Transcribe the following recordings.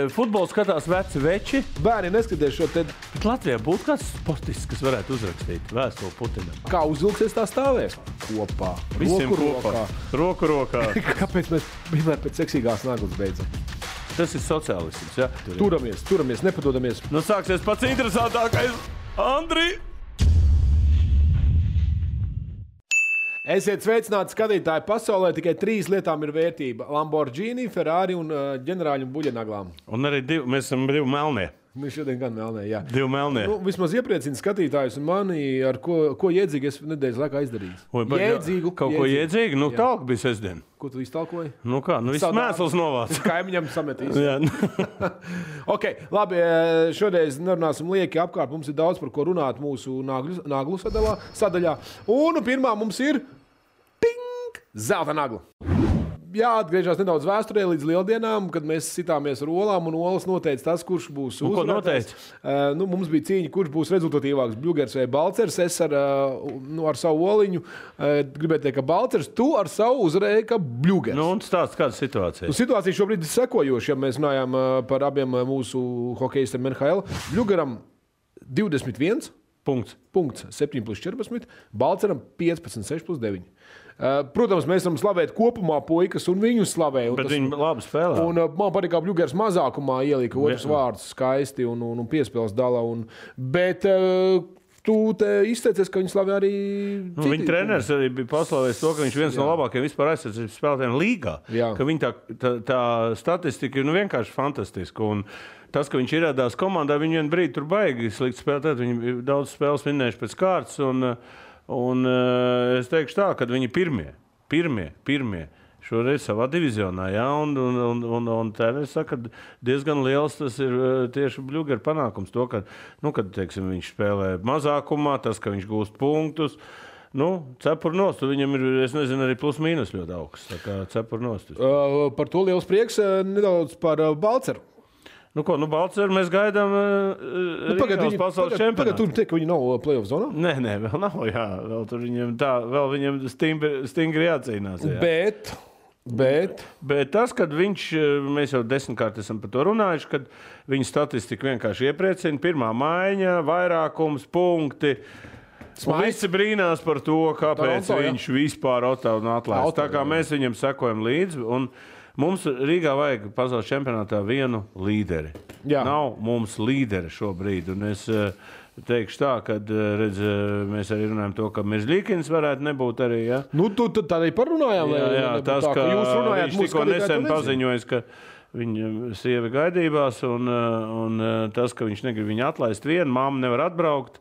Futbolu skatās veci veči. Bērni neskatās šo te... Bet Latvijā būtu kāds sportists, kas varētu uzrakstīt vēstuli Putinam. Kā uzvilksies tā stāvēs? Kopā. Visiem Roku kopā. Roku rokā. Kāpēc mēs vienmēr pēc seksīgās naglas beidzam? Tas ir sociālisms, ja? Turamies, nepadodamies. Nu sāksies pats interesantākais. Andri! Esiet sveicināti skatītāji pasaulē, tikai 3 lietām ir vērtība. Lamborghini, Ferrari un ģenerāļu buļļanaglām. Un arī mēs esam 2 melnie. Mēs šodien gan melnē, jā. 2 melnie. Nu, vismaz iepriecina skatītājus un mani, ar ko jēdzīgi es nedēļas laikā izdarījis. Jēdzīgu. Kaut ko jēdzīgu? Nu, tālāk bija sestdien. Ko tu iztalkoji? Nu kā, viss mēsls novāc. Kaimiņam sametīs. Jā. Ok, labi, šodien nerunāsim lieki apkārt. Mums ir daudz par ko runāt mūsu naglu sadaļā. Un pirmā mums ir zelta nagla. Jāatgriežas nedaudz vēsturē līdz lieldienām, kad mēs sitāmies ar olām, un olas noteica tas, kurš būs uzvarētājs. Ko noteica? Mums bija cīņa, kurš būs rezultatīvāks, Bļugers vai Balcers. Es ar savu oliņu gribēju teikt, ka Balcers, tu ar savu uzvarēji, ka Bļugers. Nu, un stāsts kāda situācija? Situācija šobrīd ir sekojoša, ja mēs runājam par abiem mūsu hokejistiem NHL. Bļugeram 21 punkts, 7+14, Balceram 15+6+9. Protams, mēs varam slavēt kopumā puikas un viņu slavē. Bet viņi labi spēlē. Un man patīk, kā Bļugers mazākumā ielika otrs vārdus skaisti un piespēles dala. Bet tu izteicies, ka viņi slavē arī citi. Viņa treneris arī bija paslavējis to, ka viņš viens no labākajiem vispār aizsardzības spēlētājiem līgā. Jā. Ka viņa tā statistika ir vienkārši fantastiska. Un tas, ka viņš ierādās komandā, viņi vien brīdi tur baigi slikti spēlēt. Viņi daudz spēles vinnējuši pēc kārtas. Un es teikšu tā, ka viņi pirmie šoreiz savā divizionā, jā, un treneris saka, ka diezgan liels tas ir tieši Bļugera panākums. To, ka, kad, teiksim, viņš spēlē mazākumā, tas, ka viņš gūst punktus, cepur nost, viņam ir, es nezinu, arī plus mīnus ļoti augsts, tā kā cepur nost. Par to liels prieks, nedaudz par Balceru. Balceru mēs gaidām Rīgās pasaules čempionātu. Pagad, tur tiek, ka viņi nav play-off zonā? Nē, vēl nav, jā. Vēl viņiem stingri jācīnās. Jā. Bet tas, kad mēs jau 10-kārt esam par to runājuši, kad viņa statistika vienkārši iepriecina, pirmā maiņa, vairākums, punkti. Visi brīnās par to, kāpēc viņš vispār atlaist. Tā kā mēs viņam sekojam līdzi. Mums Rīgā vajag pasaules čempionātā vienu līderi. Jā. Nav mums līderi šobrīd. Un es teikšu tā, ka mēs arī runājam to, ka Mirzļīkins varētu nebūt arī. Ja? Tad arī parunājām. Jā, tas, ka viņš tikko nesen paziņojas, ka viņa sieva gaidībās, un tas, ka viņš negrib viņu atlaist vienu, mamma nevar atbraukt.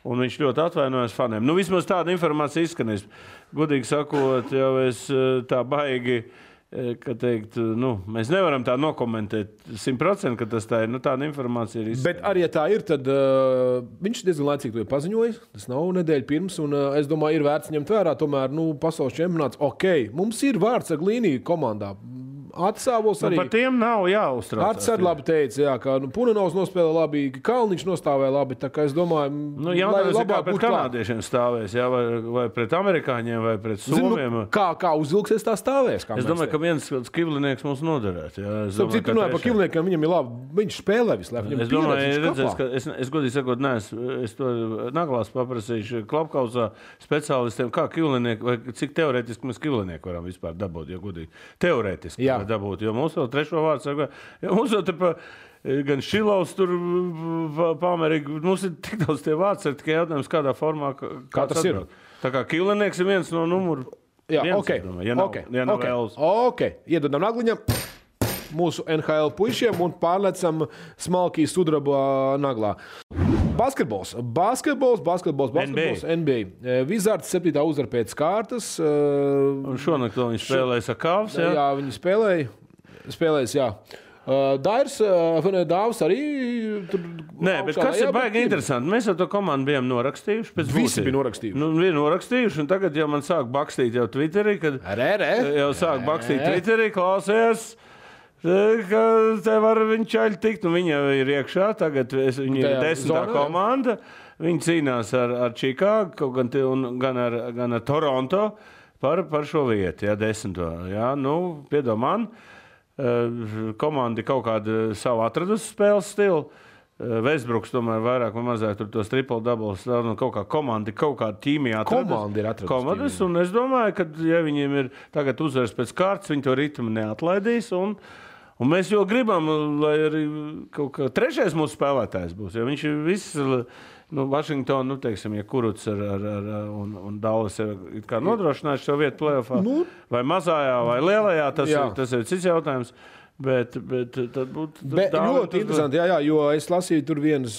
Un viņš ļoti atvainojas faniem. Vismaz tāda informācija izskanēs. Godīgi sakot, jau es tā baigi... Ka teikt, mēs nevaram tā nokomentēt 100%, ka tas tā ir. Tāda informācija ir izskanējusi. Bet arī, ja tā ir, tad viņš diezgan laicīgi to ir paziņojis. Tas nav nedēļa pirms, un es domāju, ir vērts ņemt vērā. Tomēr pasaules čempionāts, mums ir vārds ar Glīniju komandā. Atsāvos arī. Par tiem nav jāuztraucās. Arts arī labi teica, ka Punenovs nospēlē labi, ka Kalniņš nostāvēja labi. Tā kā es domāju, lai labāk pret kanādiešiem stāvēs, jā, vai pret amerikāņiem, vai pret somiem. Kā uzvilksies tā stāvēs? Es domāju, ka viens Kivlinieks mums noderētu. Citu runāju par Kivliniekiem, viņam ir labi. Viņš spēlē vislabāk. Es domāju, es godīgi sakot, es to naglās paprasīšu Klapkausā speciālistiem, kā Kivlinieki, vai cik teorētiski mēs Kivlinieku varam vispār dabūt, ja godīgi. Teorētiski. Dabūt, jo mums vēl trešo vārdu saka, mums vēl te gan Šilovs tur pamerīgi, mums ir tik daudz tie vārds, tikai jautājums, kādā formā, kā tas ir. Tā kā Kivlinieks ir viens no numuru. Jā, ja nav vēlas. Iedodam nagliņam mūsu NHL puišiem un pārlecam smalkī sudraba naglā. Basketbols, NBA. Wizards 7. uzvara pēc kārtas. Un šonakt viņi spēlēja sakāvs, jā? Jā, viņi spēlējas, jā. Dāvs arī tur... Nē, bet kas ir baigi interesanti? Mēs jau to komandu bijām norakstījuši. Visi bija norakstījuši. Bija norakstījuši, un tagad jau man sāk bakstīt jau Twitterī, klausies, ka te var viņa čaļi tikt, un viņa ir iekšā, tagad viņa ir 10. komanda, viņa cīnās ar Čikāgu, gan ar Toronto par šo vietu, 10. Piedod man. komanda kaut kādu savu atradusi spēles stilu. Westbrooks tomēr vairāk vai mazāk tur tos triple-doubles, kaut kā komanda, kaut kāda ķīmija atradusi. Komandas, un es domāju, ka, ja viņiem ir tagad uzvaras pēc kārtas, viņi to ritmu neatlaidīs, un mēs jau gribam, lai arī kaut kā trešais mūsu spēlētājs būs, jo viņš ir viss, Vašingtonu, teiksim, ja Kuruts un Dallas ir kā nodrošinājuši šo vietu play-offā, vai mazājā, vai lielajā, tas ir cits jautājums. Bet tad būtu ļoti interesanti, jo es lasīju tur vienas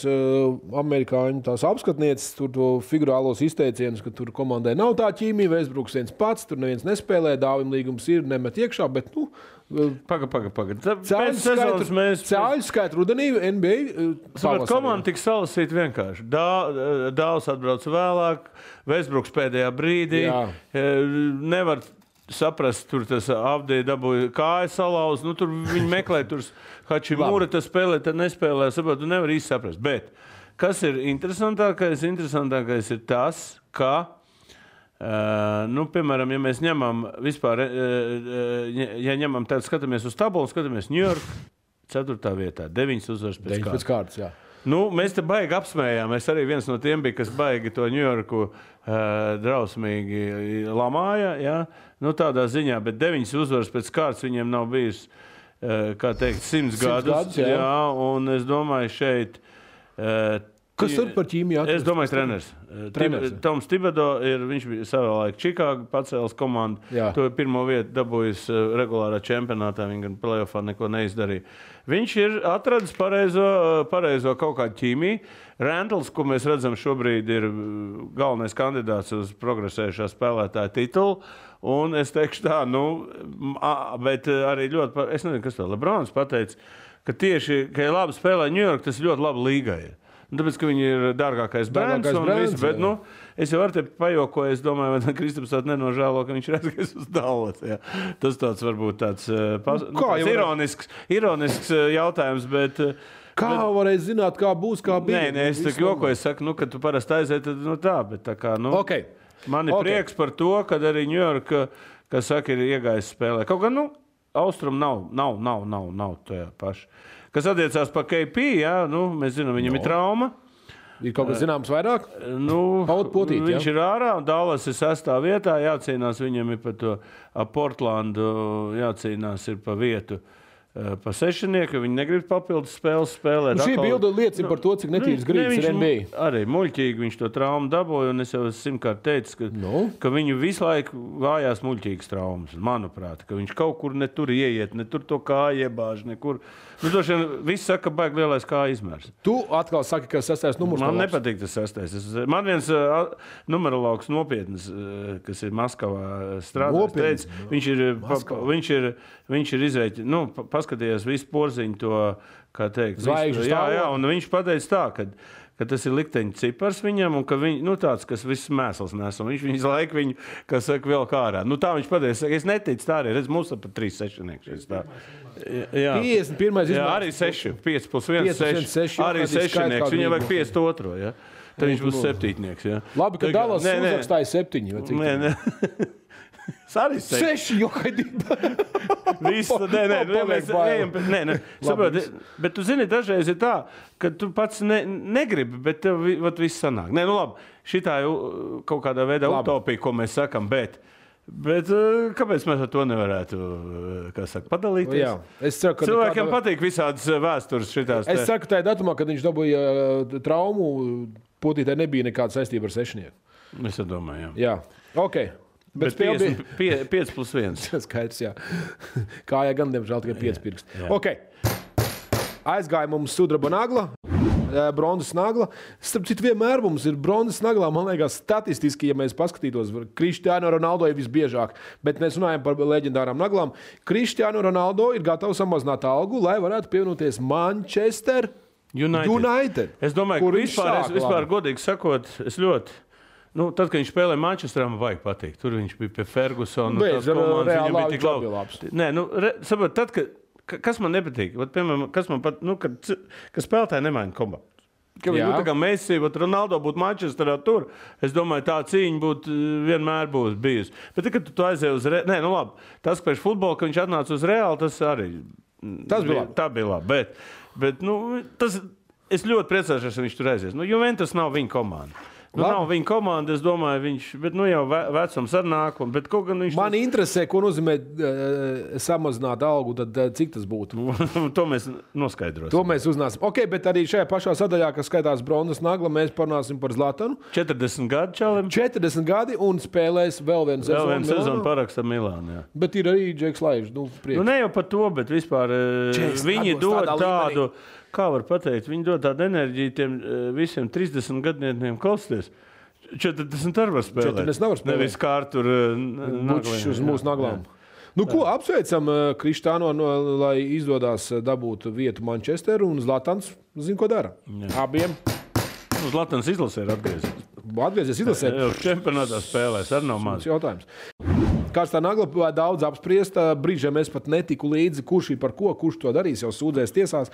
amerikāņu tās apskatnieces, tur to figurālos izteicienus, ka tur komandai nav tā ķīmija, Westbrooks viens pats, tur neviens nespēlē, Dāvim līgums ir, nemet iekšā, bet, Paga. Cēļu skaitu rudenī NBA komanda tik salasīta vienkārši. Dāvs atbrauc vēlāk, Westbrooks pēdējā brīdī. Nevar saprast, tur tas Avdija dabūja kājas salauz. Tur viņi meklē, tur Hačimura tas spēlē, tad nespēlē. Tu nevar īsti saprast. Bet kas ir interesantākais? Interesantākais ir tas, ka piemēram, ja mēs ņemam vispār, ja ņemam tādu, skatāmies uz tabulu, skatāmies New York 4. vietā, 9 uzvaras pēc kārtas. Jā. Mēs te baigi apsmējām. Es arī viens no tiem biju, kas baigi to New Yorku drausmīgi lamāja, jā. Tādā ziņā, bet 9 uzvaras pēc kārtas viņiem nav bijis, kā teikt, 100 gadus. Jā, un es domāju šeit... Kas tur par ķīmiju atrast? Es domāju, treneris. Toms Thibodeau viņš bija savā laikā Čikāga pacēlis komandu. To pirmo vietu dabūjis regulārā čempionātā. Viņi gan play-offā neko neizdarīja. Viņš ir atradis pareizo kaut kādu ķīmiju. Randalls, ko mēs redzam šobrīd, ir galvenais kandidāts uz progresējušā spēlētāja titulu. Un es teikšu tā, bet arī ļoti, es nezinu, kas to Lebrons pateica, ka tieši, ka ja labi spēlē New York, tas ļoti labi līgai ir. Tāpēc, ka viņi ir dārgākais brands un viss, bet, es jau ar te pajokoju, es domāju, vai Kristaps tāds nenožēlo, ka viņš ir aizgājis uz Dallas, jā. Tas tāds varbūt tāds ironisks jautājums, bet... Kā varēja zināt, kā būs, kā bija? Nē, es tā jokoju, es saku, kad tu parasti aiziet, tad tā, bet tā kā, man ir prieks par to, kad arī New York, kas saka, ir iegājis spēlē. Kaut gan, Austrum nav tajā paši. Kas attiecās par KP, mēs zinām, viņam ir trauma. Ir kaut kas zināms vairāk? Viņš ir ārā, un Dallas ir 6. vietā, jācīnās viņam ir par to Portlandu, jācīnās ir pa vietu. Pa sešnieku, viņi negrib papildus spēles spēlēt. Šī bilde liecina par to, cik netīrs gribas ir NBA. Arī muļķīgi viņš to traumu dabūja, un es jau 100-kārt teicu, ka viņu visu laiku vājās muļķīgas traumas, manuprāt, ka viņš kaut kur ne tur ieiet, ne tur to kāju iebāž, nekur. Droši vien viss saka, ka baigi lielais kāju izmērs. Tu atkal saki, ka 6. numurs. Man nepatīk tas 6. Man viens numerologs nopietnas, kas ir Maskavā strādājis, teica, viņš ir izrēķinājis, paskatījās visu porziņu to, kā teikt, zvaigžņu stāvokli. Un viņš pateica tā, ka tas ir likteņa cipars viņam, un ka tāds, kas viss mēsls nes, un viņš visu laiku viņu, kas saka, vēl kā ārā. Tā viņš pateica, es neticu tā arī, redz, mums pat 3 sešnieki. 51. Jā, arī 6, 5 plus 1, 6, arī sešnieks, viņam vajag 52, jā. Tad viņš būs septītnieks, jā. Labi, ka Dallas uzrakstāja 7. Nē. Arī 6, jo haidība. Nē. Saproti, bet tu zini, dažreiz ir tā, ka tu pats negribi, bet tev viss sanāk. Nē, labi, šitā ir kaut kādā veidā utopija, ko mēs sakam, bet kāpēc mēs ar to nevarētu, kā saka, padalīties? Jā. Es ceru, ka cilvēkiem patīk visādas vēstures šitās. Es ceru, ka tajā datumā, kad viņš dabūja traumu, potītē nebija nekāda saistība ar sešnieku. Es domāju, jā. Ok. Bet 5 plus 1. Skaidrs, jā. Kājā gan, diemžēl, tikai 5 pirksti. Ok. Aizgāja mums sudraba nagla, bronzas nagla. Starp citu, vienmēr mums ir bronzas naglā, man liekas, statistiski, ja mēs paskatītos, Cristiano Ronaldo ir visbiežāk, bet mēs runājam par leģendārām naglām. Cristiano Ronaldo ir gatavs samazināt algu, lai varētu pievienoties Manchester United. Es domāju, ka vispār godīgi sakot, es ļoti... tad, kad viņš spēlēja Manchesterā, man vajag pateikt. Tur viņš bija pie Fergusona. Viņam bija tik labs. Nē, saprot, tad, kas man nepatīk, piemēram, kas spēlētāji nemaina komandu. Ka viņi tā kā Messi, Ronaldo būtu Manchesterā tur. Es domāju, tā cīņa būtu vienmēr būs bijusi. Bet kad tu aizēji uz Reāli, nē, nu labi, tas, ka pēc futbola, ka viņš atnāca uz Reāli, tas arī. Tas bija labi. Tā bija labi. Bet nu, es ļoti priecāšos, ka viņš tur aizies. Nu, Juventus nav viņa komanda. Nu, nav viņa komanda, es domāju, viņš, bet nu jau vecums ar nāk, bet kaut gan viņš... Mani interesē, ko nozīmē samazināt algu, tad cik tas būtu? To mēs noskaidrosim. To mēs uznāsim. Ok, bet arī šajā pašā sadaļā, kas skaitās bronzas nagla, mēs parunāsim par Zlatanu. 40 gadi čalim. 40 gadi un spēlēs vēl vienu sezonu. Vēl vienu sezonu paraksta Milānu, jā. Bet ir arī Džeks Laižs, priekš. Nu, ne jau par to, bet vispār viņi dod tādu... Kā var pateikt, viņi dod tādu enerģiju tiem visiem 30 gadniekiem klausties. 40 arī var spēlēt. 40 nevar spēlēt. Nevis kā tur Bučs uz mūsu naglām. Nu, ko apsveicam Krištāno, lai izdodās dabūt vietu Manchesteru un Zlatans, zin, ko dara. Jā. Abiem. Zlatans izlasē ir atgriezies. Atgriezies izlasē. Čempionātā spēlēs, arī nav maz. Jautājums. Kāds tā nagla daudz apspriest, brīžiem es pat netiku līdzi, kurš ir par ko, kurš to darīs, jau sūdzēs tiesās.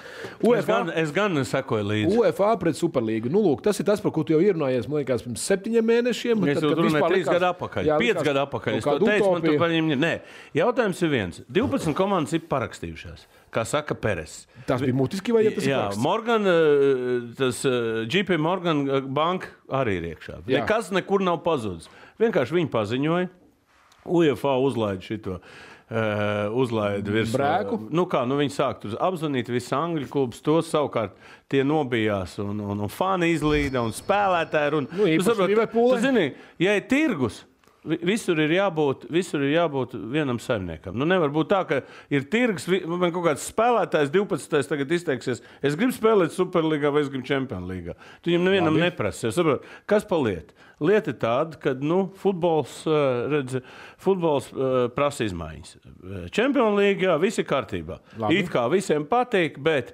Es gan sekoju līdzi. UEFA pret Superlīgu. Nu, lūk, tas ir tas, par ko tu jau ierunājies, man liekas, pirms 7 mēnešiem. Es jau runāju 3 gadu atpakaļ, 5 gadu atpakaļ. Es to teicu, man tur paņem... Nē, jautājums ir viens. 12 komandas ir parakstījušās, kā saka Peres. Tas bija mutiski vai ja tas ir paraksts? Morgan, tas JP Morgan banka arī ir iekšā. Nekas nekur nav pazudis. Vienkārši viņi paziņoja. UEFA uzlaida šito, uzlaida virs brēku. Nu kā, nu viņi sāk tur apzvanīt visu Angļu klubus, tos savukārt tie nobijās un fani izlīda un spēlētāji. Nu, īpaši Liverpoola. Tu zini, ja ir tirgus, visur ir jābūt vienam saimniekam. Nu, nevar būt tā, ka ir tirgus, man kaut kāds spēlētājs 12. tagad izteiksies, es gribu spēlēt Superlīgā vai es gribu Champions līgā. Tu viņam nevienam neprasi. Kas pa lietu? Lieta ir tāda, ka futbols prasa izmaiņas. Champions līgā viss ir kārtībā. Labi. It kā visiem patīk, bet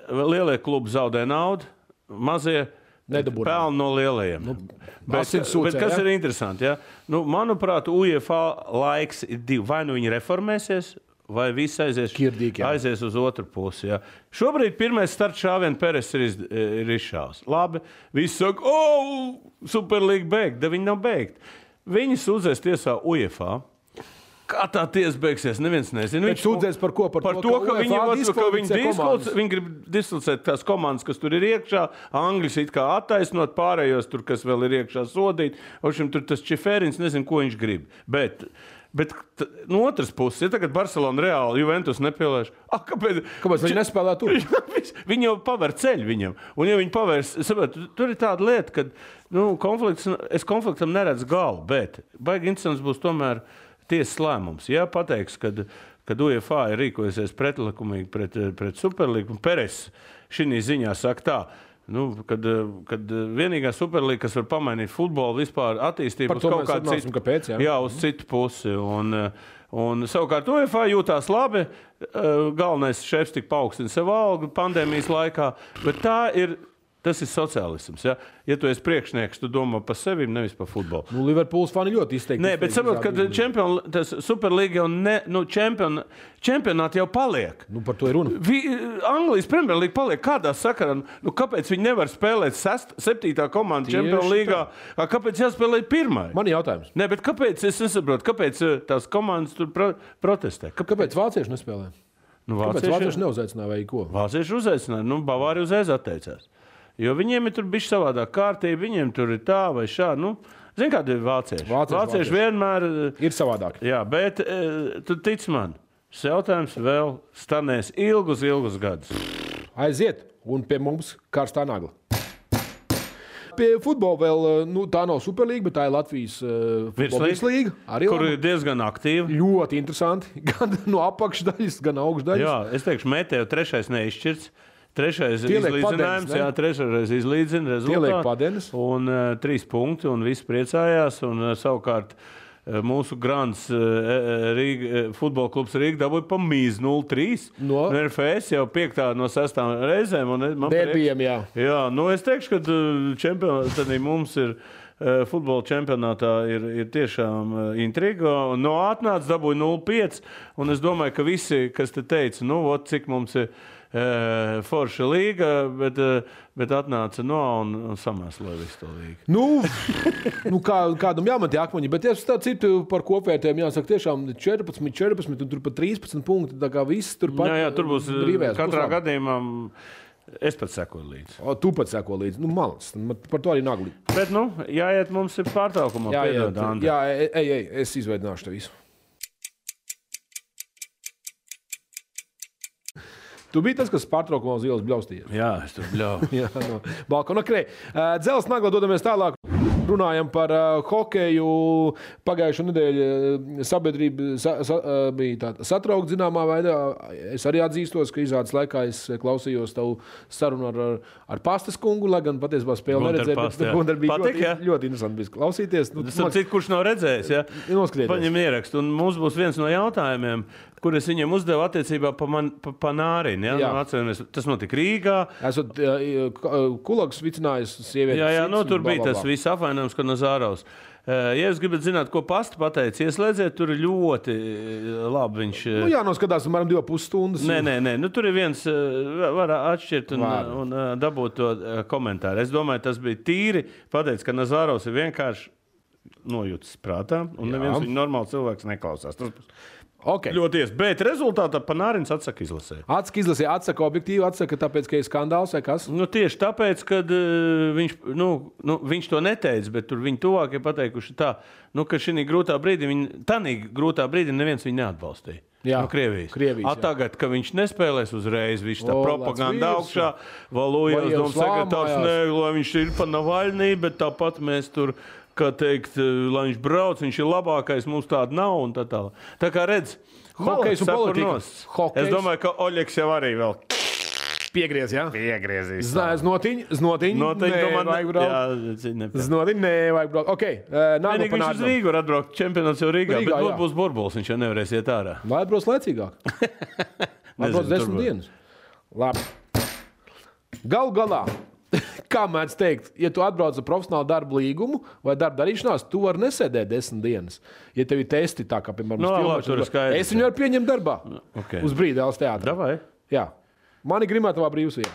lielie klubi zaudē naudu, mazie pelna no lielajiem. Bet kas ir interesanti? Ja? Nu, manuprāt, UEFA laiks ir 2. Vai nu viņi reformēsies, vai viss aizies uz otru pusi. Ja? Šobrīd pirmais starts šāvien Peres ir izšāvs. Labi, visi saka, Superlīga beigta, viņi nav beigti. Viņi sūdzēs tiesā UEFA. Kā tā tiesa beigsies, neviens nezina. Viņš sūdzēs par ko? Par to, ka viņi grib diskvalificēt tās komandas, kas tur ir iekšā. Angļus it kā attaisnot, pārējos tur, kas vēl ir iekšā sodīt. Tur tas Čiferins nezinu, ko viņš grib. Bet no otras puses, ja tagad Barcelona Reāli Juventus nepielēš, kāpēc viņi nespēlē tur? Viņi jau paver ceļu viņam. Un ja viņi pavērs, tur ir tāda lieta, ka es konfliktam neredzu galu, bet baigi interesants būs tomēr tiesas lēmums. Ja pateiks, kad UEFA ir rīkojusies pretlikumīgi pret Superlīgu, un Peres šī ziņā saka tā, kad vienīgā Superlīga, kas var pamainīt futbolu vispār attīstību uz kaut kādu citu, kāpēc, uz citu pusi. Un savukārt UEFA jūtās labi, galvenais šefs tik paaugstina sev algu pandēmijas laikā, bet tas ir sociālisms. Ja tu esi priekšnieks, tu domā par sevi, nevis par futbolu. Nu, Liverpools fani ļoti izteikti. Nē, bet saprot, ka Superlīga jau čempionāti jau paliek. Nu, par to ir runa. Anglijas Premjerlīga paliek kādā sakarā. Nu, kāpēc viņi nevar spēlēt 7. komandu Champions līgā? Kāpēc jāspēlē 1? Man ir jautājums. Nē, bet kāpēc, es nesaprotu, kāpēc tās komandas tur protestē? Kāpēc vācieši nespēlē? Kāpēc vācieši neuzaicināja vai ko? Vācieši uzaicināja, Bavārija uzreiz atteicās. Jo viņiem ir tur bišķi savādāk kārtība, viņiem tur ir tā vai šā. Zini, kādi ir vācieši? Vācieši vienmēr ir savādāk. Jā, bet tu tic man, šis jautājums vēl stanēs ilgus gadus. Aiziet, un pie mums karstā nagla. Pie futbola vēl, tā nav Superlīga, bet tā ir Latvijas virslīga. Kur ir diezgan aktīva. Ļoti interesanti. Gan no apakšdaļas, gan augšdaļas. Jā, es teikšu, Meteo 3. neizšķirts. 3. izlīdzinājums, jā, 3. izlīdzina rezultātu. Un 3 punkti, un visi priecājās. Un savukārt mūsu grants futbola klubs Rīga dabūja pa mīz 0-3. No RFS jau 5. no 6. reizēm. Derbijam, jā. Jā, es teikšu, ka mums ir futbola čempionātā ir tiešām intriga. Atnāca dabūja 0-5. Un es domāju, ka visi, kas te teica, cik mums ir forša līga, bet atnāca un samēsloja visu to līgu. Nu kādam jāmet akmeņi, bet es tā citu par kopvērtējumu jāsaka tiešām 14, un tur pat 13 punkti, tā kā viss tur pat. Jā, tur būs katrā gadījumā. Es pat sekoju līdzi. Tu pat sekoju līdzi. Malacis. Par to arī nagli. Bet, jāiet mums ir pārtraukumā. Jā, ej, es izveidināšu te visu. Tu biji tas, kas pārtraukumā uz ielas bļaustījies. Jā, es tur bļauju. Jā, no balkona. Dzels nagla dodamies tālāk. Runājam par hokeju. Pagājušo nedēļu sabiedrība bija satraukta zināmā veidā. Es arī atzīstos, ka izrādes laikā es klausījos tavu sarunu ar Pastas kungu, lai gan patiesībā spēli neredzēju. Gunter bija ļoti interesanti bija klausīties. Kurš nav redzējis, ja? Paņem ierakstu. Un mums būs viens no jautājumiem, kur es viņiem uzdevu attiecībā pa Nārinu. Ja? Tas notika Rīgā. Esot Kulags vicinājis sievieti. Jā, tur bija tas viss apvainojums, ka Nazārovs. Ja jūs gribat zināt, ko Pasta pateica, ieslēdziet, tur ir ļoti labi viņš... jānoskatās, apmēram 2,5 stundas. Nē, tur ir viens, var atšķirt un dabūt to komentāru. Es domāju, tas bija tīri pateicis, ka Nazārovs ir vienkārši nojūtas prātā, un neviens viņa normāli cilvēks neklausās. Okay. Ļoti ies, bet rezultātā Panārins atsaka izlasē. Atsaka objektīvi, atsaka tāpēc, ka ir skandāls vai kas? Tieši tāpēc, ka viņš to neteica, bet tur viņi tuvākie pateikuši tā, ka šī grūtā brīdī neviens viņu neatbalstīja. Jā, Krievijas. Tagad, ka viņš nespēlēs uzreiz, viņš tā propaganda augšā, Valujevs doma sekretārs, lai viņš ir pa Navaļnī, bet tāpat mēs tur... kā teikt, lai viņš brauc, viņš ir labākais, mums tāda nav un tā tālāk. Tā kā redz, hokejs un politika. Es domāju, ka Oļegs jau arī vēl piegriez, jā? Piegriezīs. Znotiņ, nevajag braukt. Znotiņ, nevajag braukt. Ok, nākamā viņš uz Rīgu var atbraukt, čempionāts jau Rīgā, bet būs burbulis, viņš jau nevarēs iet ārā. Lai atbrauc laicīgāk. Atbrauc 10 dienas. Labi. Galu galā. Kā mēdz teikt, ja tu atbrauc ar profesionālu darbu līgumu vai darba darīšanās, tu vari nesēdēt 10 dienas. Ja tev ir testi, tā kā, piemēram, es viņu varu pieņemt darbā. Okay. Uz brīdi Dēls teātrā. Davai. Jā. Mani Grimatavā brīvsvieta.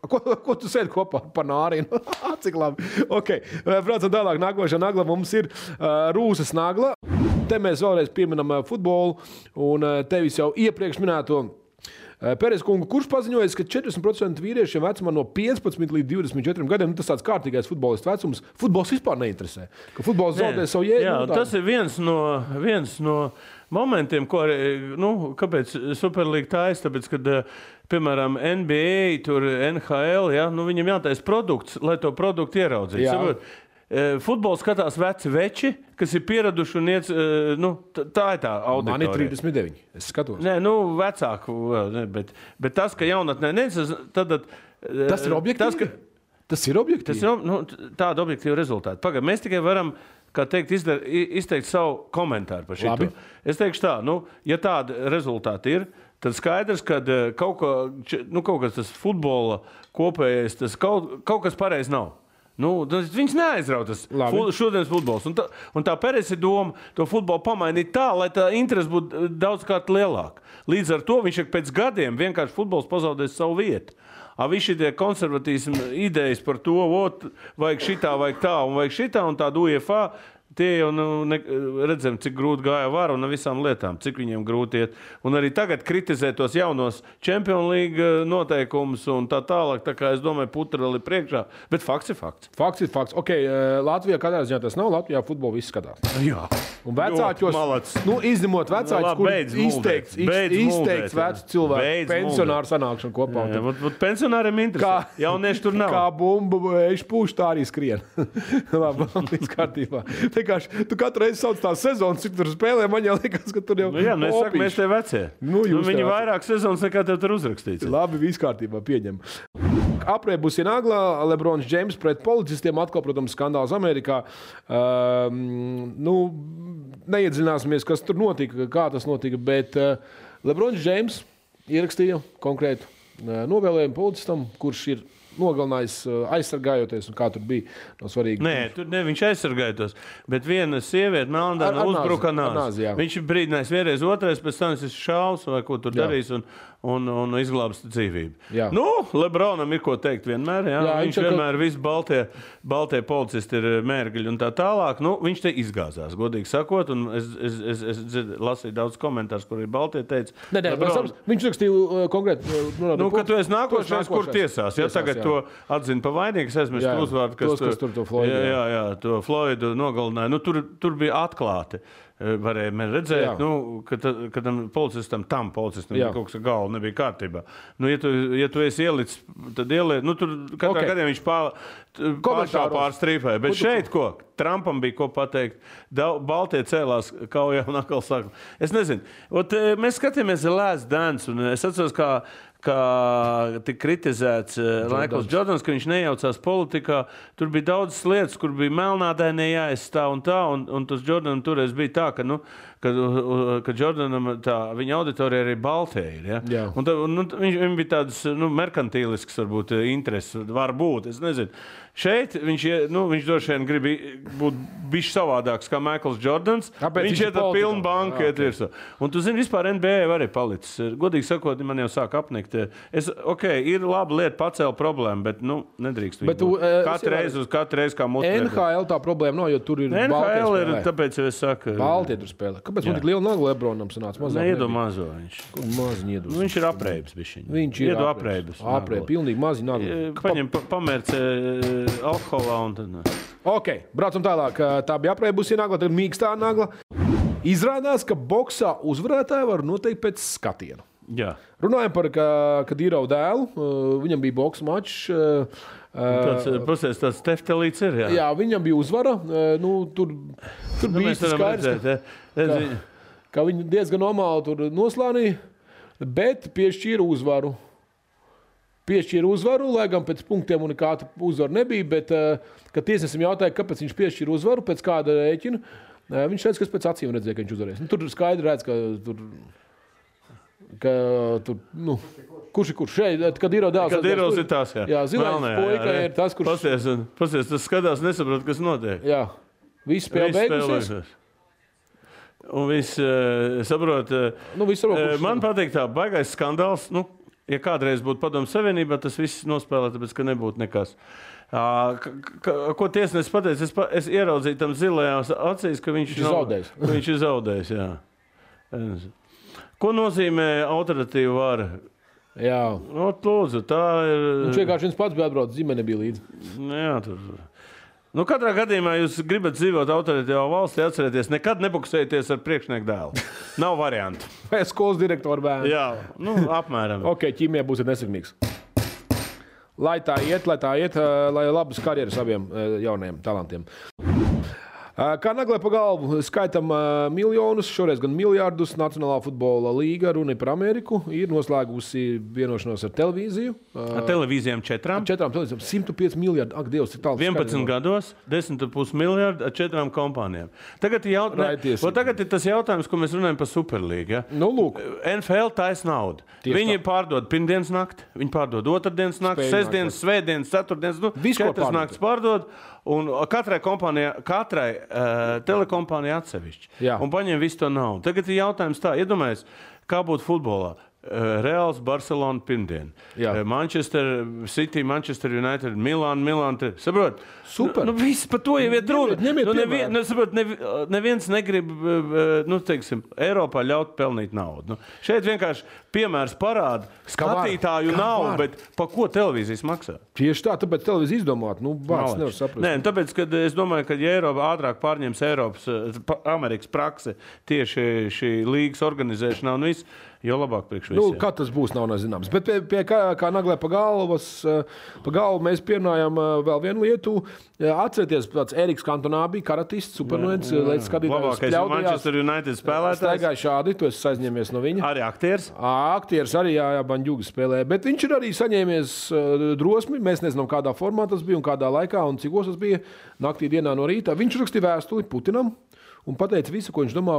Ko tu sēdi kopā par Nārinu? Cik labi. Ok, braucam tālāk. Nākošā nagla mums ir Rūsas nagla. Te mēs vēlreiz pieminam futbolu un tevis jau iepriekš minēto Pērēs kungu, kurš paziņoja, ka 40% vīriešiem vecumā no 15 līdz 24 gadiem, tas tāds kārtīgais futbolists vecums, futbols vispār neinteresē. Ka futbols zaudē savu jēgu. Jā, tas ir viens no momentiem, ko arī, kāpēc Superlīga taisa, tāpēc, kad, piemēram, NBA, tur NHL, ja, viņam jātais produkts, lai to produktu ieraudzītu. Futbols skatās veci veči, kas ir pieraduši un iet, tā ir tā auditorija. Man ir 39, es skatos. Nē, vecāku, bet tas, ka jaunatnē tad... Tas ir objektīvi? Tas ir objektīvi? Tas ir, tāda objektīva rezultāta. Pagaid, mēs tikai varam, kā teikt, izteikt savu komentāru par šito. Es teikšu tā, ja tāda rezultāta ir, tad skaidrs, ka kaut kas tas futbola kopējais, tas kaut kas pareizi nav. Viņš neaizrautas šodienas futbols. Un tā Pērēs ir doma to futbolu pamainīt tā, lai tā interese būtu daudzkārt lielāka. Līdz ar to viņš pēc gadiem vienkārši futbols pazaudēs savu vietu. Visi šitie konservatīsmi idejas par to, vajag šitā, vajag tā un vajag šitā un tādu UEFA, tie jau redzam, cik grūti gāja var un visām lietām, cik viņiem grūti iet. Un arī tagad kritizē tos jaunos Champions League noteikumus un tā tālāk. Tā kā es domāju, putra vēl ir priekšā. Bet fakts ir fakts. Fakts ir fakts. Ok, Latvijā katrā ziņā tas nav. Latvijā futbolu viss skatās. Jā. Un vecāķos, izņemot vecāķus, kur izteikts vecu cilvēku pensionāru sanākšanu kopā. Pensionāriem interesē. Jaunieši tur nav. Kā bumba pūš, tā arī skrien. Labi, līdz kārtībā. Tu katru reizi sauc tās sezonas, cik tur spēlē, man jau liekas, ka tur jau es saku, mēs te vecie. Viņi vairāk sezonas nekā tev tur uzrakstīts. Labi, viss kārtībā, pieņem. Aprēbusi nagla, Lebrons Džeims pret policistiem, atkal, protams, skandāls Amerikā. Neiedziļināsimies, kas tur notika, kā tas notika, bet Lebrons Džeims ierakstīja konkrētu novēlējumu policistam, kurš ir nogalinājis aizsargājoties, un kā tur bija no svarīgi. Nē, viņš aizsargājoties, bet viena sieviete Melnāna uzbruka nāzi. Viņš ir brīdinājis vienreiz, otrais, pēc tam es šaus vai ko tur darīs un izglābs dzīvību. Jā. Nu, Lebronam ir ko teikt vienmēr, jā. Viņš vienmēr visi baltie policisti ir mērgļi un tā tālāk. Nu, viņš te izgāzās, godīgi sakot, un es lasīju daudz komentārus, kur ir baltie teica. Viņš rakstīja konkrēti. Ka tu esi nākošais, kur tiesās. Ja tagad to atzina pa vainīgu, es aizmirstu uzvārdu, kas tur to Floydu. Jā, to Floydu nogalināja. Nu, tur bija atklāti. Varēja redzēt, ka tam policistam kaut kas ar galvu nebija kārtībā. Nu, ja tu esi ielicis, tad ieliec. Nu, tur katrā gadījumā viņš pāršā pārstrīpēja. Bet šeit ko? Trumpam bija ko pateikt. Baltie cēlās kaujā un atkal saka. Es nezinu. Mēs skatījāmies Last Dance, un es atceros, kā tika kritizēts Maikls Jordans, ka viņš nejaucās politikā. Tur bija daudzas lietas, kur bija melnādainie jāizstāv un tā, un tas Jordanam toreiz bija tā, ka Jordanam viņa auditorija arī baltie ir. Ja? Un viņam bija tādas merkantīlisks, varbūt, intereses, var būt, es nezinu. Šeit viņš droši vien grib būt bišķi savādāks kā Maikls Jordans. Viņš iet ar pilnu banku. Un tu zini, vispār NBA arī palicis. Godīgi sakot, man jau sāk apnikt. Ir laba lieta pacēla problēmu, bet nedrīkst viņu būt. Katru reizi kā mūsu. NHL tā problēma nav, jo tur ir NHL ir, tāpēc jau es saku. Baltie tur spēlē. Kāpēc man tik liela nagu Lebronam sanāca? Neiedo mazo viņš. Maziņi iedos. Viņš ir apreibs bišķiņ. Viņš ir apreibs. Apreibs, pilnīgi mazi nagu. Paņem pamērce alkoholā un tad. Ok, braucam tālāk. Tā bija apreibusi nagla, tad mīkstā nagla. Izrādās, ka boksā uzvarētāji var noteikt pēc skatienu. Jā. Runājam par Kadīrovu dēlu. Viņam bija boksa mačs. Tāds teftelīts ir, jā. Jā, viņam bija uzvara. Tur bija skaidrs, ka viņi diezgan normāli tur noslānīja, bet piešķīra uzvaru. Lai gan pēc punktiem un nekāda uzvara nebija, bet, kad tiesnesim jautāja, kāpēc viņš piešķīra uzvaru, pēc kāda rēķina, viņš redz, kas pēc acīm redzēja, ka viņš uzvarēs. Tur skaidri redz, ka tur, kurš ir kurš šeit, kad ir dēls. Kad ir tās, jā. Jā, zilais puika ir tas, kurš... Pasies, tas skatās, nesaprot, kas notiek. Jā, viss spēle beigusies. Un viss saprot, man patīk tā baigais skandāls, ja kādreiz būtu Padomju Savienībā, tas viss nospēlē, tāpēc, ka nebūtu nekas. Ko tiesnesis pateica, es ieraudzīju tam zilajās acīs, ka viņš ir zaudējis. Jā. Ko nozīmē autoritīva vara? Jā. Lūdzu, tā ir... Viņš vienkārši viens pats bija atbraucis, ģimene bija līdzi. Jā, tur... katrā gadījumā jūs gribat dzīvot autoritīvā valstī, atcerieties, nekad nebuksējieties ar priekšnieku dēlu. Nav variantu. Skolas direktoru bērnu. Jā, apmēram. Ok, ķīmijā būsiet nesakmīgs. Lai tā iet, lai labas karjeras abiem jaunajiem talantiem. Kā naglē pa galvu, skaitam miljonus, šoreiz gan miljārdus. Nacionālā futbola līga, runa par Ameriku, ir noslēgusi vienošanos ar televīziju. Ar televīzijām 4? 4 televīzijām, 105 miljardi. Ak, Dievs, ir tāls. 11 gados, 10,5 miljardi ar 4 kompānijām. Tagad ir tas jautājums, ko mēs runājam par Superlīgu. Ja? Lūk. NFL taisa naudu. Viņi pārdod pirmdienas nakti, viņi pārdod otrdienas nakti, sestdienas, svētdienas, ceturtdienas, 4 naktis pārdod. Un katrai telekompānijai atsevišķi. Jā. Un paņem visu to naudu. Tagad ir jautājums tā, iedomājies, kā būtu futbolā. Reāls, Barcelona pirmdien. Manchester City, Manchester United, Milan. Saprot? Super. Viss par to jau ir runa. Neviens negrib, Eiropā ļaut pelnīt naudu. Šeit vienkārši piemērs parāda skatītāju naudu, bet pa ko televīzijas maksā? Tieši tā, tāpēc televīzija izdomāt. Vārds nevar saprast. Nē, tāpēc, kad es domāju, ka ja Eiropa ātrāk pārņems Amerikas praksi tieši šī līgas organizēšanā un viss, jo labāk priekš visiem. Kā tas būs, nav nezināms. Bet pie kā naglē pa galvu mēs pierunājam vēl vienu lietu. Atcerieties, tāds Eriks Kantonā bija karatists, supernuens, līdz skatītājs spļaudījās. Labākais Manchester United spēlētājs. Staigāja šādi, tu esi aizņēmies no viņa. Arī aktieris? Aktieris arī, jā, Baņģuga spēlē. Bet viņš ir arī saņēmies drosmi. Mēs nezinām, kādā formā tas bija un kādā laikā un cikos tas bija naktī dienā no rīta. Viņš rakstīja vēstuli Putinam un pateica visu, ko viņš domā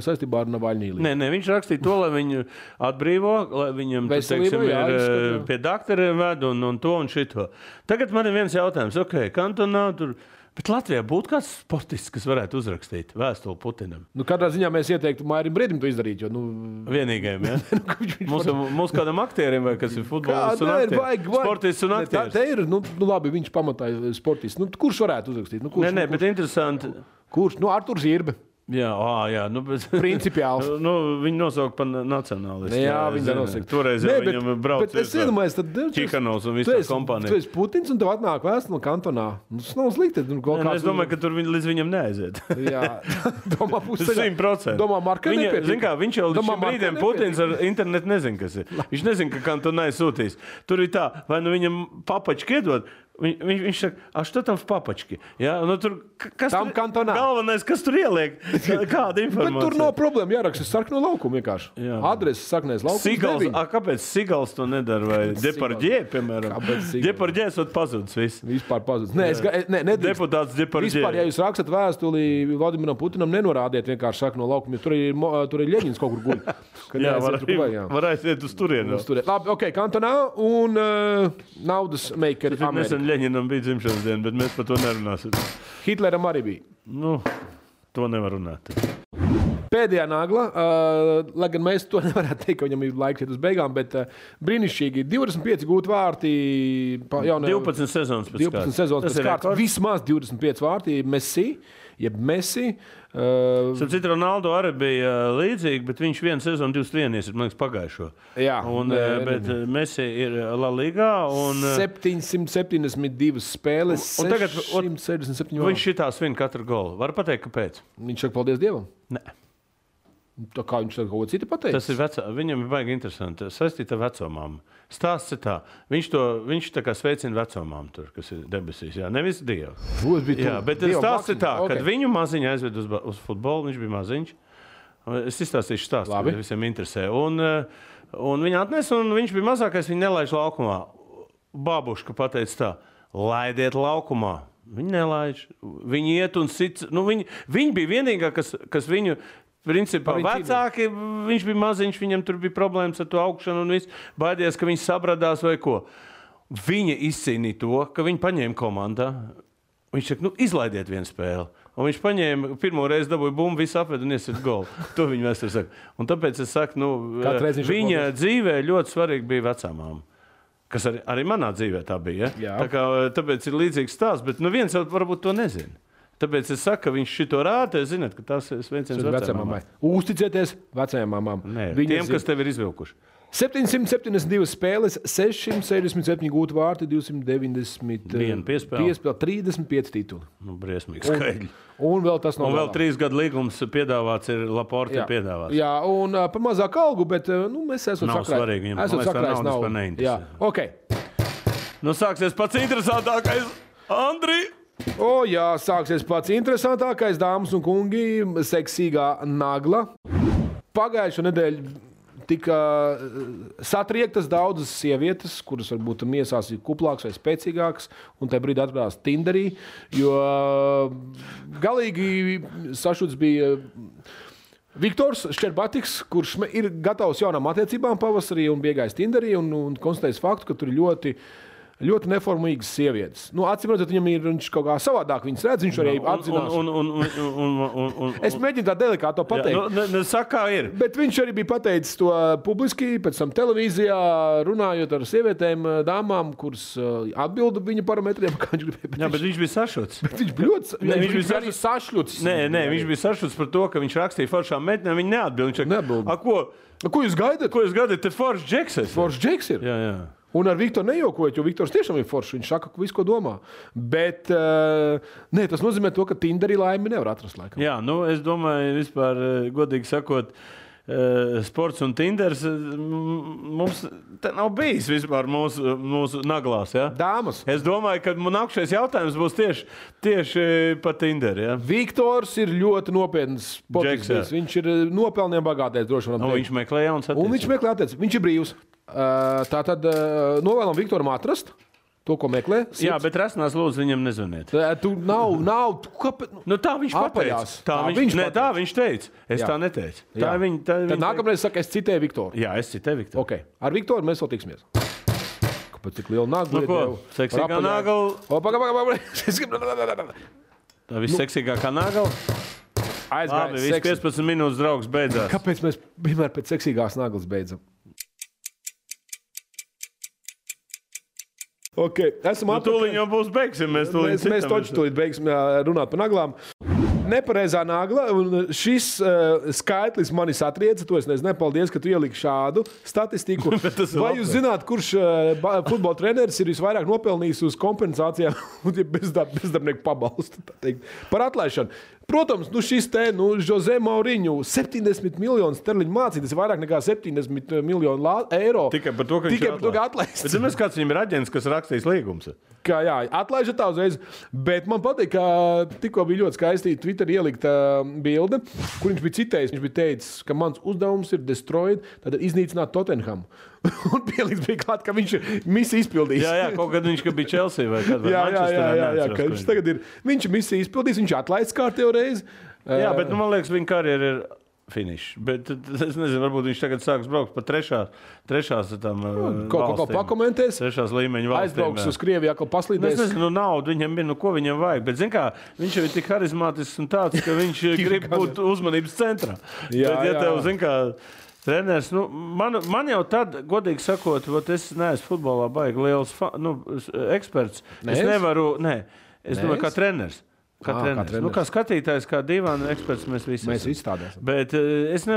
saistībā ar Navaļniju. Nē, viņš rakstīja to, lai viņu atbrīvo, lai viņam, teiksim, pie daktariem ved un to un šito. Tagad man ir viens jautājums. Kantonā tur... Bet Latvijā būtu kāds sportists, kas varētu uzrakstīt vēstuli Putinam. Kādā ziņā mēs ieteiktu Mairim Briedim to izdarīt? Vienīgajam, ja? Mūsu kādam aktierim, vai kas ir futbolists un aktieris? Sportists un aktieris. Te ir, labi, viņš pamatāja sportists. Kurš varētu uzrakstīt? Nē, bet interesanti. Kurš? Arturs Zirbe. Jā. Principiāli. Viņi nosauka par nacionālistu. Jā, viņi nosauka. Toreiz viņam brauc Čikanovs un visu kompāniju. Tu esi Putins un tev atnāk vēstuli no kantonā. Tas nav slikti. Es domāju, ka tur līdz viņam neaiziet. Jā. Domā, 100%. Domā, Marka nepietīk. Zin kā, viņš jau līdz šim brīdiem Putins ar internetu nezin, kas ir. Viņš nezin, ka kantonai sūtīs. Tur ir tā, vai viņam papački iedod. Viņš saka, a što tam v papački? Ja? Tur, kas tam kantonā. Galvenais, kas tur ieliek? Kāda informācija? Bet tur nav problēma, jāraksta sarkano laukumu vienkārši. Jā. Adrese sarkanais laukums. Sigals, kāpēc Sigals to nedara? Vai Depardjē, piemēram? Depardjē esot pazudis viss. Vispār pazudis. Nē, deputāts Depardjē. Vispār, ja jūs rakstat vēstuli Vladimiram Putinam, nenorādiet vienkārši sarkano laukumu, jo tur ir Ļeņins kaut kur guļ. Jā, var aiziet uz turienu. Labi, kantonā un naudas makeri Amerika. Ļeņinam bija dzimšanas diena, bet mēs par to nerunāsim. Hitleram arī bija. To nevar runāt. Pēdējā nagla, lai gan mēs to nevarētu teikt, ka viņam ir laiks iet uz beigām, bet brīnišķīgi 25 gūti vārti. 12 sezonas pēc kārtas. Vismaz 25 vārti Messi. Citu Ronaldo arī bija līdzīgi, bet viņš vienu sezonu 21 ir, man liekas, pagājušo. Jā. Bet Messi ir La Ligā. 772 spēles, 667 vārti. Viņš šitā svin katru golu. Var pateikt, kāpēc? Viņš saka paldies Dievam? Nē. Tā kā viņš kaut ko citu pateica? Tas ir viņam ir baigi interesanti. Saistīt ar vecomām. Stāsts ir tā. Viņš tā kā sveicina vecomām tur, kas ir debesīs. Jā, nevis Dievu. Jā, bet stāsts ir tā, kad viņu maziņu aizved uz futbolu, viņš bija maziņš. Es izstāstīšu stāstu, kad visiem interesē. Un viņa atnesa, un viņš bija mazākais, viņa nelaiž laukumā. Babuška pateica tā, laidiet laukumā. Viņi nelaiž. Viņi iet un sit. Viņi bija vienīgā, kas viņu... Principā vecāki, viņš bija maziņš, viņam tur bija problēmas ar to augšanu un viss. Baidījās, ka viņš sabradās vai ko. Viņa izcīnīja to, ka viņi paņēma komandā. Viņš saka, izlaidiet vienu spēli. Un viņš paņēma, pirmo reizi dabūja bumbu, visu apved un iesit golu. To viņa vēstur saka. Un tāpēc es saku, viņa dzīvē ļoti svarīgi bija vecāmām. Kas arī manā dzīvē tā bija. Ja? Tāpēc ir līdzīgs stāsts, bet viens jau varbūt to nezina. Tāpēc es saku, ka viņš šito rāda, zināt, ka tas ir sveiciens vecajām mamām. Uzticieties vecajām mamām. Tiem, kas tev ir izvilkuši. 772 spēles, 667 gūti vārti, 291 piespēle, 35 tituli. Briesmīgi skaidri. Un vēl tas nav. Un vēl 3 gadu līgums piedāvāts ir Laporte piedāvāts. Jā, un par mazāku algu, bet mēs esam sakrājis. Nav svarīgi viņam. Esam sakrājis naudu. Jā, sāksies pats interesantākais, Andri. Jā, sāksies pats interesantākais, dāmas un kungi, seksīgā nagla. Pagājušo nedēļu tika satriektas daudzas sievietes, kuras varbūt miesās ir kuplākas vai spēcīgākas, un tajā brīdī atradās Tinderī, jo galīgi sašuts bija Viktors Šķerbatiks, kurš ir gatavs jaunām attiecībām pavasarī un bija iegājis Tinderī un konstatējis faktu, ka tur ir ļoti neformīgas sievietes. Acīm redzot, viņš kaut kā savādāk viņas redz, viņš arī apzinās. Es mēģinu tā delikāto pateikt. Saka, kā ir. Bet viņš arī bija pateicis to publiski, pēc tam televīzijā, runājot ar sievietēm, dāmām, kuras atbilda viņa parametriem, kā viņš gribēja. Jā, bet viņš bija sašuts. Bet viņš bija ļoti arī sašļuts. Nē, viņš bija sašuts par to, ka viņš rakstīja foršām meitenēm, viņi neatbild. Ko jūs gaidat? Ko jūs gaidat? Te foršs džeks ir. Foršs džeks ir? Jā. Un ar Viktoru nejokojot, jo Viktors tiešām ir foršs. Viņš saka, visu, ko domā. Bet tas nozīmē to, ka Tinderī laimi nevar atrast laikam. Jā, es domāju, vispār, godīgi sakot, sports un Tinders mums te nav bijis vispār mūsu naglās. Ja? Dāmas. Es domāju, ka nākamais jautājums būs tieši par Tinderu. Ja? Viktors ir ļoti nopietns sportists. Viņš ir nopelniem bagātais, droši vien. Viņš meklē jaunas attiecības. Un viņš meklē attiecības. Viņš ir brīvs. Tātad novēlam Viktoram atrast To, ko meklē? Jā, bet rasnās lūdzu viņam nezvaniet. Tu nav. Kāpēc? Nu, tā viņš pateica. Tā viņš teica. Es tā neteicu. Tad nākamreiz saka, es citēju Viktoru. Jā, es citēju Viktoru. Okay. Ar Viktoru mēs vēl tiksimies. Kāpēc tik liela nagla? Nu, ko? Seksīgā nagla. Tā visseksīgākā nagla. Labi, viss 15 minūtes draugs beidzās. Kāpēc mēs vienmēr pēc seksīgās naglas beidzam? Okay. Tūlīt jau būs beigsim. Mēs tūlīt beigsim runāt par naglām. Nepareizā nagla, un šis skaitlis manis atrieca, to es nezinu, paldies, ka tu ieliki šādu statistiku. Vai jūs zināt, kurš futbola treneris ir visvairāk nopelnījis uz kompensācijām un bezdarbnieku pabalstu par atlaišanu? Protams, šis Jose Mourinho 70 miljonu sterliņu mācīt, tas ir vairāk nekā 70 miljonu eiro. Tikai par to, ka viņš ir atlaists. Bet zināms, kāds viņam ir aģents, kas rakstīs līgumus? Atlaižat tā uzreiz. Bet man patīk, ka tikko bija ļoti skaisti Twitter ielikta bilde, kur viņš bija citējis. Viņš bija teicis, ka mans uzdevums ir destroyed, tad iznīcināt Tottenhamu. Un pieliks bija klāt, ka viņš ir misiju izpildījis. Jā, kaut kad viņš bija Chelsea vai kādā jā, ka viņš tagad ir. Viņš ir misiju izpildījis, viņš atlaists kārtējo reizi. Jā, bet man liekas, viņa karjera ir finish. Bet es nezinu, varbūt viņš tagad sāks braukt pa trešās tam valstīm. Pakomentēs. Trešās līmeņa valstīm. Aizbrauks uz Krieviju, atkal paslīdēs. Es nezinu, naudu viņam bija, ko viņam vajag. Bet, zin kā, viņš jau ir tik harizmātisks un tāds, ka viņš grib būt uzmanības centrā. Bet, tev, zin kā, treneris, man jau tad, godīgi sakot, es neesmu futbolā baigi liels eksperts. Es nevaru, es domāju, kā treneris. Kā treneris. Kā skatītājs, kā divāna eksperts, mēs visi tādēsim. Bet es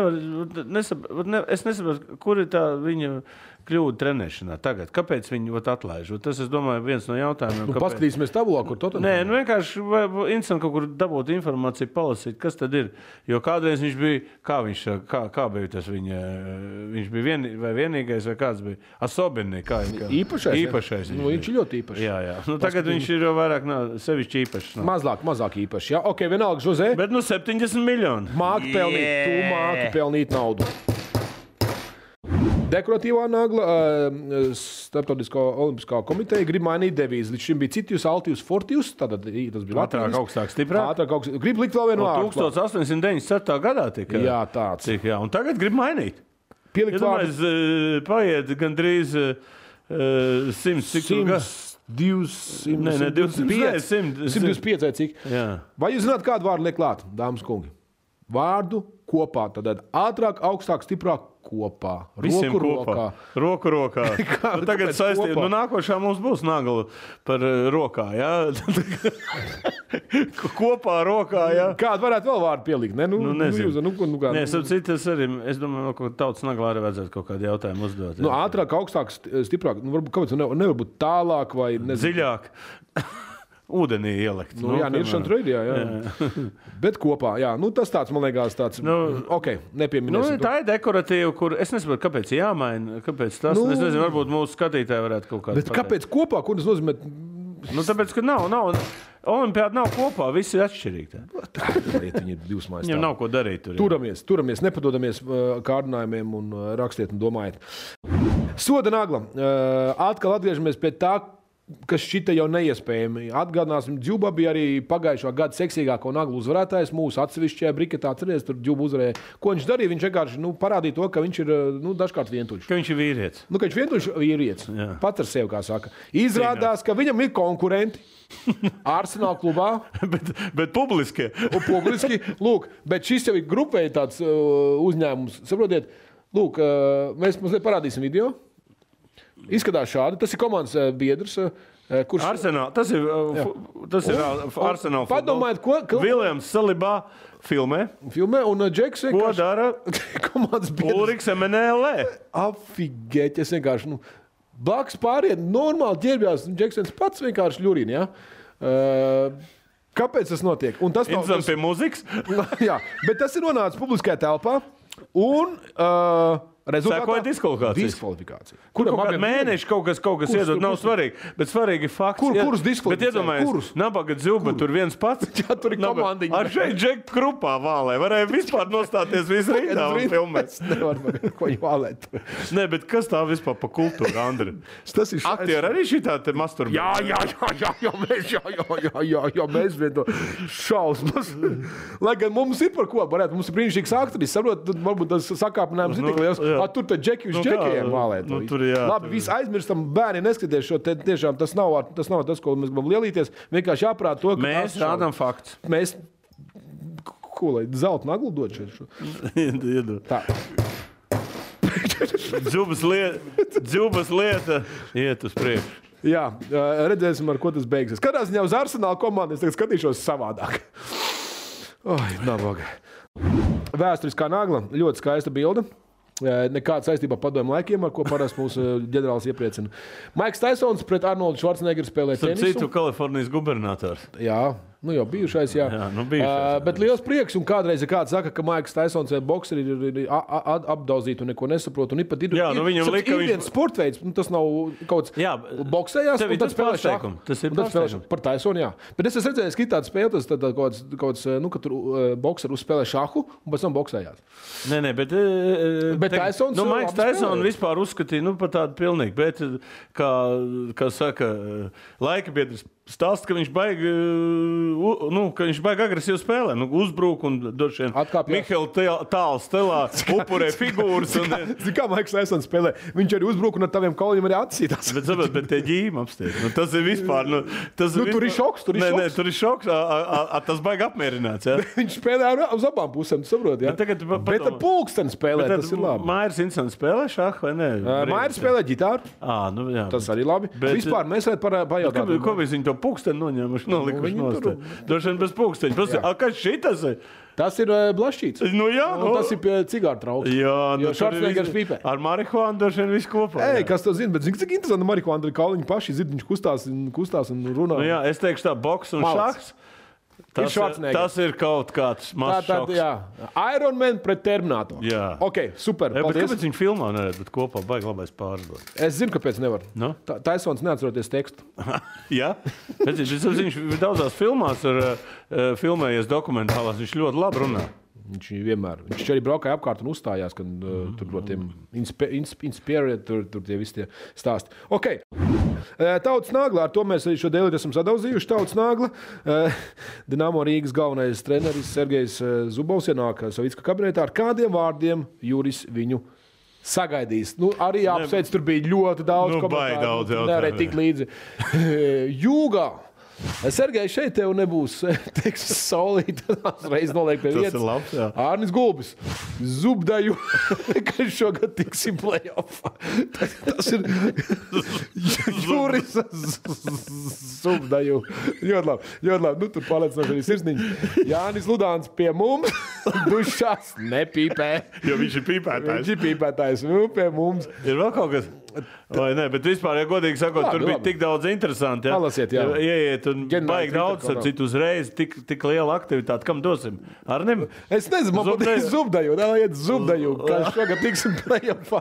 nesaprotu, kur ir tā viņa kļūda trenēšanā tagad. Kāpēc viņu atlaiž? Tas, es domāju, viens no jautājumiem. Paskatīsimies tabulā, kur to tad? Nē, vienkārši interesanti kaut kur dabūt informāciju, palasīt, kas tad ir. Jo kādreiz viņš bija, kā bija tas viņa, viņš bija vienīgais vai kāds bija? Asobinī, īpašais. Viņš ir ļoti īpašs. Jā. Tagad viņš ir jau vairāk sevišķi īpašs. Mazāk īpaši. Jā, ok, vienalga, Jose. Bet 70 miljoni. Māki pelnīt naudu. Dekoratīvā nagla, Starptautiskā olimpiskā komiteja grib mainīt devīzi. Līdz šim bija Citius, Altius, Fortius. Tātad tas bija Latvijas. Augstāk, stiprāk. Grib likt vēl vienu vārdu. 1897. gadā tika. Jā, tāds. Un tagad grib mainīt. Pielikt vārdu. Paiet gandrīz 100 gads. 125 vai cik. Jā. Vai jūs zināt, kādu vārdu liek klāt, dāmas kungi? Vārdu kopā. Tad ātrāk, augstāk, stiprāk kopā. Roku rokā. Tagad saistība. Nākošā mums būs nagla par rokā. Jā? Kopā rokā. Jā? Kādu varētu vēl vārdu pielikt? Nezinu. Es domāju, ka tautas naglā arī vajadzētu kaut kādu jautājumu uzdot. Ātrāk, augstāk, stiprāk. Kāpēc nevar būt tālāk vai dziļāk? Ūdenī ielikt. Niršana trade, jā. Bet kopā, jā. Tas tāds, man liekas, tāds, nepieminēsim. Tā ir dekoratīva, kur es nesaprotu, kāpēc jāmaina, kāpēc tas, es nezinu, varbūt mūsu skatītāji varētu kaut kādā. Bet kāpēc kopā, ko tas nozīmē? Tāpēc, ka nav, olimpiāda nav kopā, visi ir atšķirīgi. Viņi ir divas mājas. Viņam nav ko darīt tur. Turamies, nepadodamies kārdinājumiem un rakstiet un domājiet. Soda nagla. Atkal atgriežamies pie tā, kas šita jau neiespējami. Atgādināsim, Džuba bija arī pagājušā gada seksīgāko naglu uzvarētājs mūsu atsevišķajā briketā. Atceries, tur Džuba uzvarēja. Ko viņš darīja? Viņš vienkārši parādīja to, ka viņš ir dažkārt vientuļš. Ka viņš ir vīrietis. Ka viņš vientuļš vīrietis. Pats ar sevi, kā saka. Izrādās, ka viņam ir konkurenti Arsenal klubā. bet publiski. Publiski. Lūk, bet šis jau ir grupēji tāds uzņēmums. Saprotiet, lūk, mēs mazliet parādīsim video. Izskatās šādi. Tas ir komandas biedrs. Kurš... Arsenal. Tas ir Arsenal. Padomājiet, ko... Viljams Salibā filmē. Un Džeks vienkārši... Ko dara? Komandas biedrs. Ulriks MNLE. Afigēt, es vienkārši... Blakus pāriet, normāli ģērbjās. Džeks pats vienkārši ļurina, jā? Kāpēc tas notiek? Un tas nav... Pie muzikas? Jā, bet tas ir nonācis publiskajā telpā. Un... Sekoja diskvalifikācija. Kuram kaut kādu mēnešu kaut kas iedod, nav svarīgi. Bet svarīgi ir fakts. Kurus diskvalificēja? Bet iedomājies, Nabaga Dzilba tur viens pats. Jā, tur ir komandiņa. Ar šeit Džek Krupā vālē. Varēja vispār nostāties visu rindā un filmēt. Nevar ko vālēt. Nē, bet kas tā vispār pa kultūru, Andri? Aktieri arī šitā te masturbē? Jā, mēs vien to šausmas. Lai gan mums ir par ko, varētu, mums ir brīnišķīgs aktris, saprot, varbūt tas sakāpinājums ir tik liels. Tur tad džeki uz džekajiem vālēt. Labi, visi aizmirstam, bērni neskaties šo, tiešām tas nav tas, ko mēs gribam lielīties. Vienkārši jāprāt to, ka mēs rādām fakts. Mēs, ko lai, zelta naglu dod šeit šo? Iedod. Tā. Dzubas lieta iet uz priekšu. Jā, redzēsim, ar ko tas beigsies. Kādā ziņā uz Arsenāla komandu es tagad skatīšos savādāk. Nabaga. Vēsturiskā nagla, ļoti skaista bilde. Nekāda saistībā padomju laikiem, ar ko parasti mūsu ģenerālis iepriecina. Maiks Taisons pret Arnoldu Švarcnegeru spēlē tenisu. Citu Kalifornijas gubernators. Jā, jau bijušais, jā. Bet liels prieks, un kādreiz kāds saka, ka Maiks Taisons bokseri ir apdauzīti un neko nesaprot. Un pat ir viens sportveids, tas nav kaut kāds boksējās, un tad spēlē šahu. Tas ir pārsteigums. Par Taisonu, jā. Bet es redzēju, ka tāda spēle, tas kaut kāds, ka tur bokseri uzspēlē šahu, un pēc tam boksējās. Nē, bet Taisons... Maiks Taisons vispār uzskatīja, par tādu pilnīgi, bet, kā saka, laika biedrs stāsta, ka viņš baigi agresīvi spēlē. Uzbrūk un došien Mihaila tālu stelā upurē figūras. Zini, kā Maiks Taisons spēlē? Viņš arī uzbrūk un ar taviem kauļiem arī atsītās. Bet tie ģīmi apstiet. Tas ir vispār... Tur ir šoks. Nē, tur ir šoks. Tas baigi apmierināts. Ja? Viņš spēlē uz abām pusēm, tu saproti, ja? Bet ar pulksteni spēlē, tas ir labi. Mairs Insons spēlē šahu vai ne? Mairs spēlē ģitāru. Tas arī labi. Vispār mēs pajautāt. Ko viņi to pulksteni noņēmuši, nolikuši nost? Droši vien bez pulksteņa. Kas šitas ir? Tas ir blašķīts. Tas ir pie cigāru trauks. Jo Švarcnegers pīpē. Ar marihuānu droši vien viss kopā. Kas to zina? Bet zini, cik interesanti marihuāna ir kauliņi paši. Viņš kustās un runā. Es teikšu tā, boks un šahs. Tas ir kaut kāds mazs šoks. Iron Man pret Terminatoru. Jā. Ok, super. Kāpēc viņi filmā neredz, bet kopā baigi labais pārdot? Es zinu, kāpēc nevar. No? Taisons neatceroties tekstu. Jā? Viņš daudzās filmās ir filmējies dokumentālās, viņš ļoti labi runā. Viņš arī braukāja apkārt un uzstājās, kad tur no tiem inspirēt, tur tie visi tie stāsti. Ok. Tautas nagla, ar to mēs šo dēlīt esam sadauzījuši. Tautas nagla. Dinamo Rīgas galvenais treneris Sergejs Zubovs ienāk Savicka kabinetā. Ar kādiem vārdiem Juris viņu sagaidīs? Arī apsveic, tur bija ļoti daudz komentāru. Nevarēja tikt līdzi. Jūgā. Sergej, šeit tev nebūs solīt, reiz noliek pie vietas. Tas ir labs, jā. Ārnis Gulbis, Zubdaju, ka šogad tiksim play-offā. Tas ir Juris Zubdaju. Ļoti labi. Tur pārliecinoši arī sirsniņš. Jānis Ludāns pie mums, dušās nepīpē. Jo viņš ir pīpētājs. Viņš ir pīpētājs, pie mums. Ir vēl kaut kas... Vai ne, bet vispār, ja godīgi sakot, tur bija tik daudz interesanti. Ja? Palasiet, jā. Ieiet un baigi daudz, ar citu uzreiz, tik liela aktivitāte. Kam dosim? Arnim? Es nezinu, man patīk Zubdaju. Iet Zubdaju, kā šogad tiksim play-offā.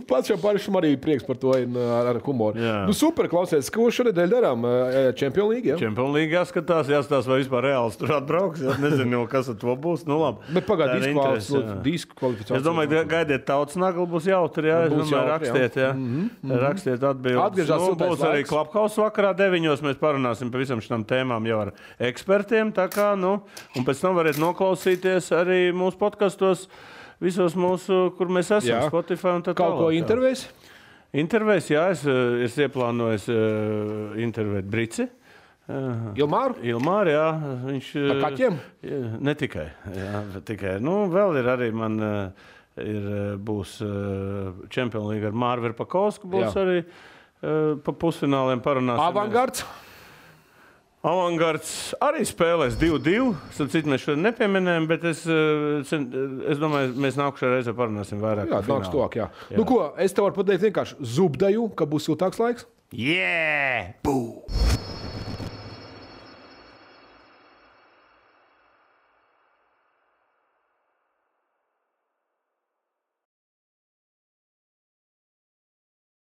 Pats jau pāršam arī prieks par to ar humoru. Super, klausies, ko šonedēļ darām? Champions League, jā? Champions League jāskatās, vai vispār reāls tur atbrauks. Nezinu, kas ar to būs. Nu, labi. Bet pagād, diskvalifikācija. Es domāju, gaidiet tautas naglu, būs jautri, jā. Es domāju, rakstiet, jā. Rakstiet atbildes. Būs arī Clubhouse vakarā 9:00. Mēs parunāsim par visam šitām tēmām jau ar ekspertiem. Tā kā, un pēc tam varat noklausīties arī mūsu podkastos, visos mūsu, kur mēs esam, Spotify un tā tālāk. Kaut ko intervējs? Intervējs, jā. Es ieplānoju intervēt Brici. Ilmāru, jā. Viņš... Par kaķiem? Ne tikai. Jā, tikai. Vēl ir arī man... būs Champions League ar Māru Verpakovsku, būs arī pa pusfināliem parunāsim. Avangards arī spēlēs 2-2. Citu mēs šodien nepieminējam, bet es domāju, mēs nākušajā reizē parunāsim vairāk. Jā, nāks tuvāk, jā. Nu ko, es tev varu pateikt vienkārši Zubdaju, ka būs siltāks laiks? Yeah! Bū!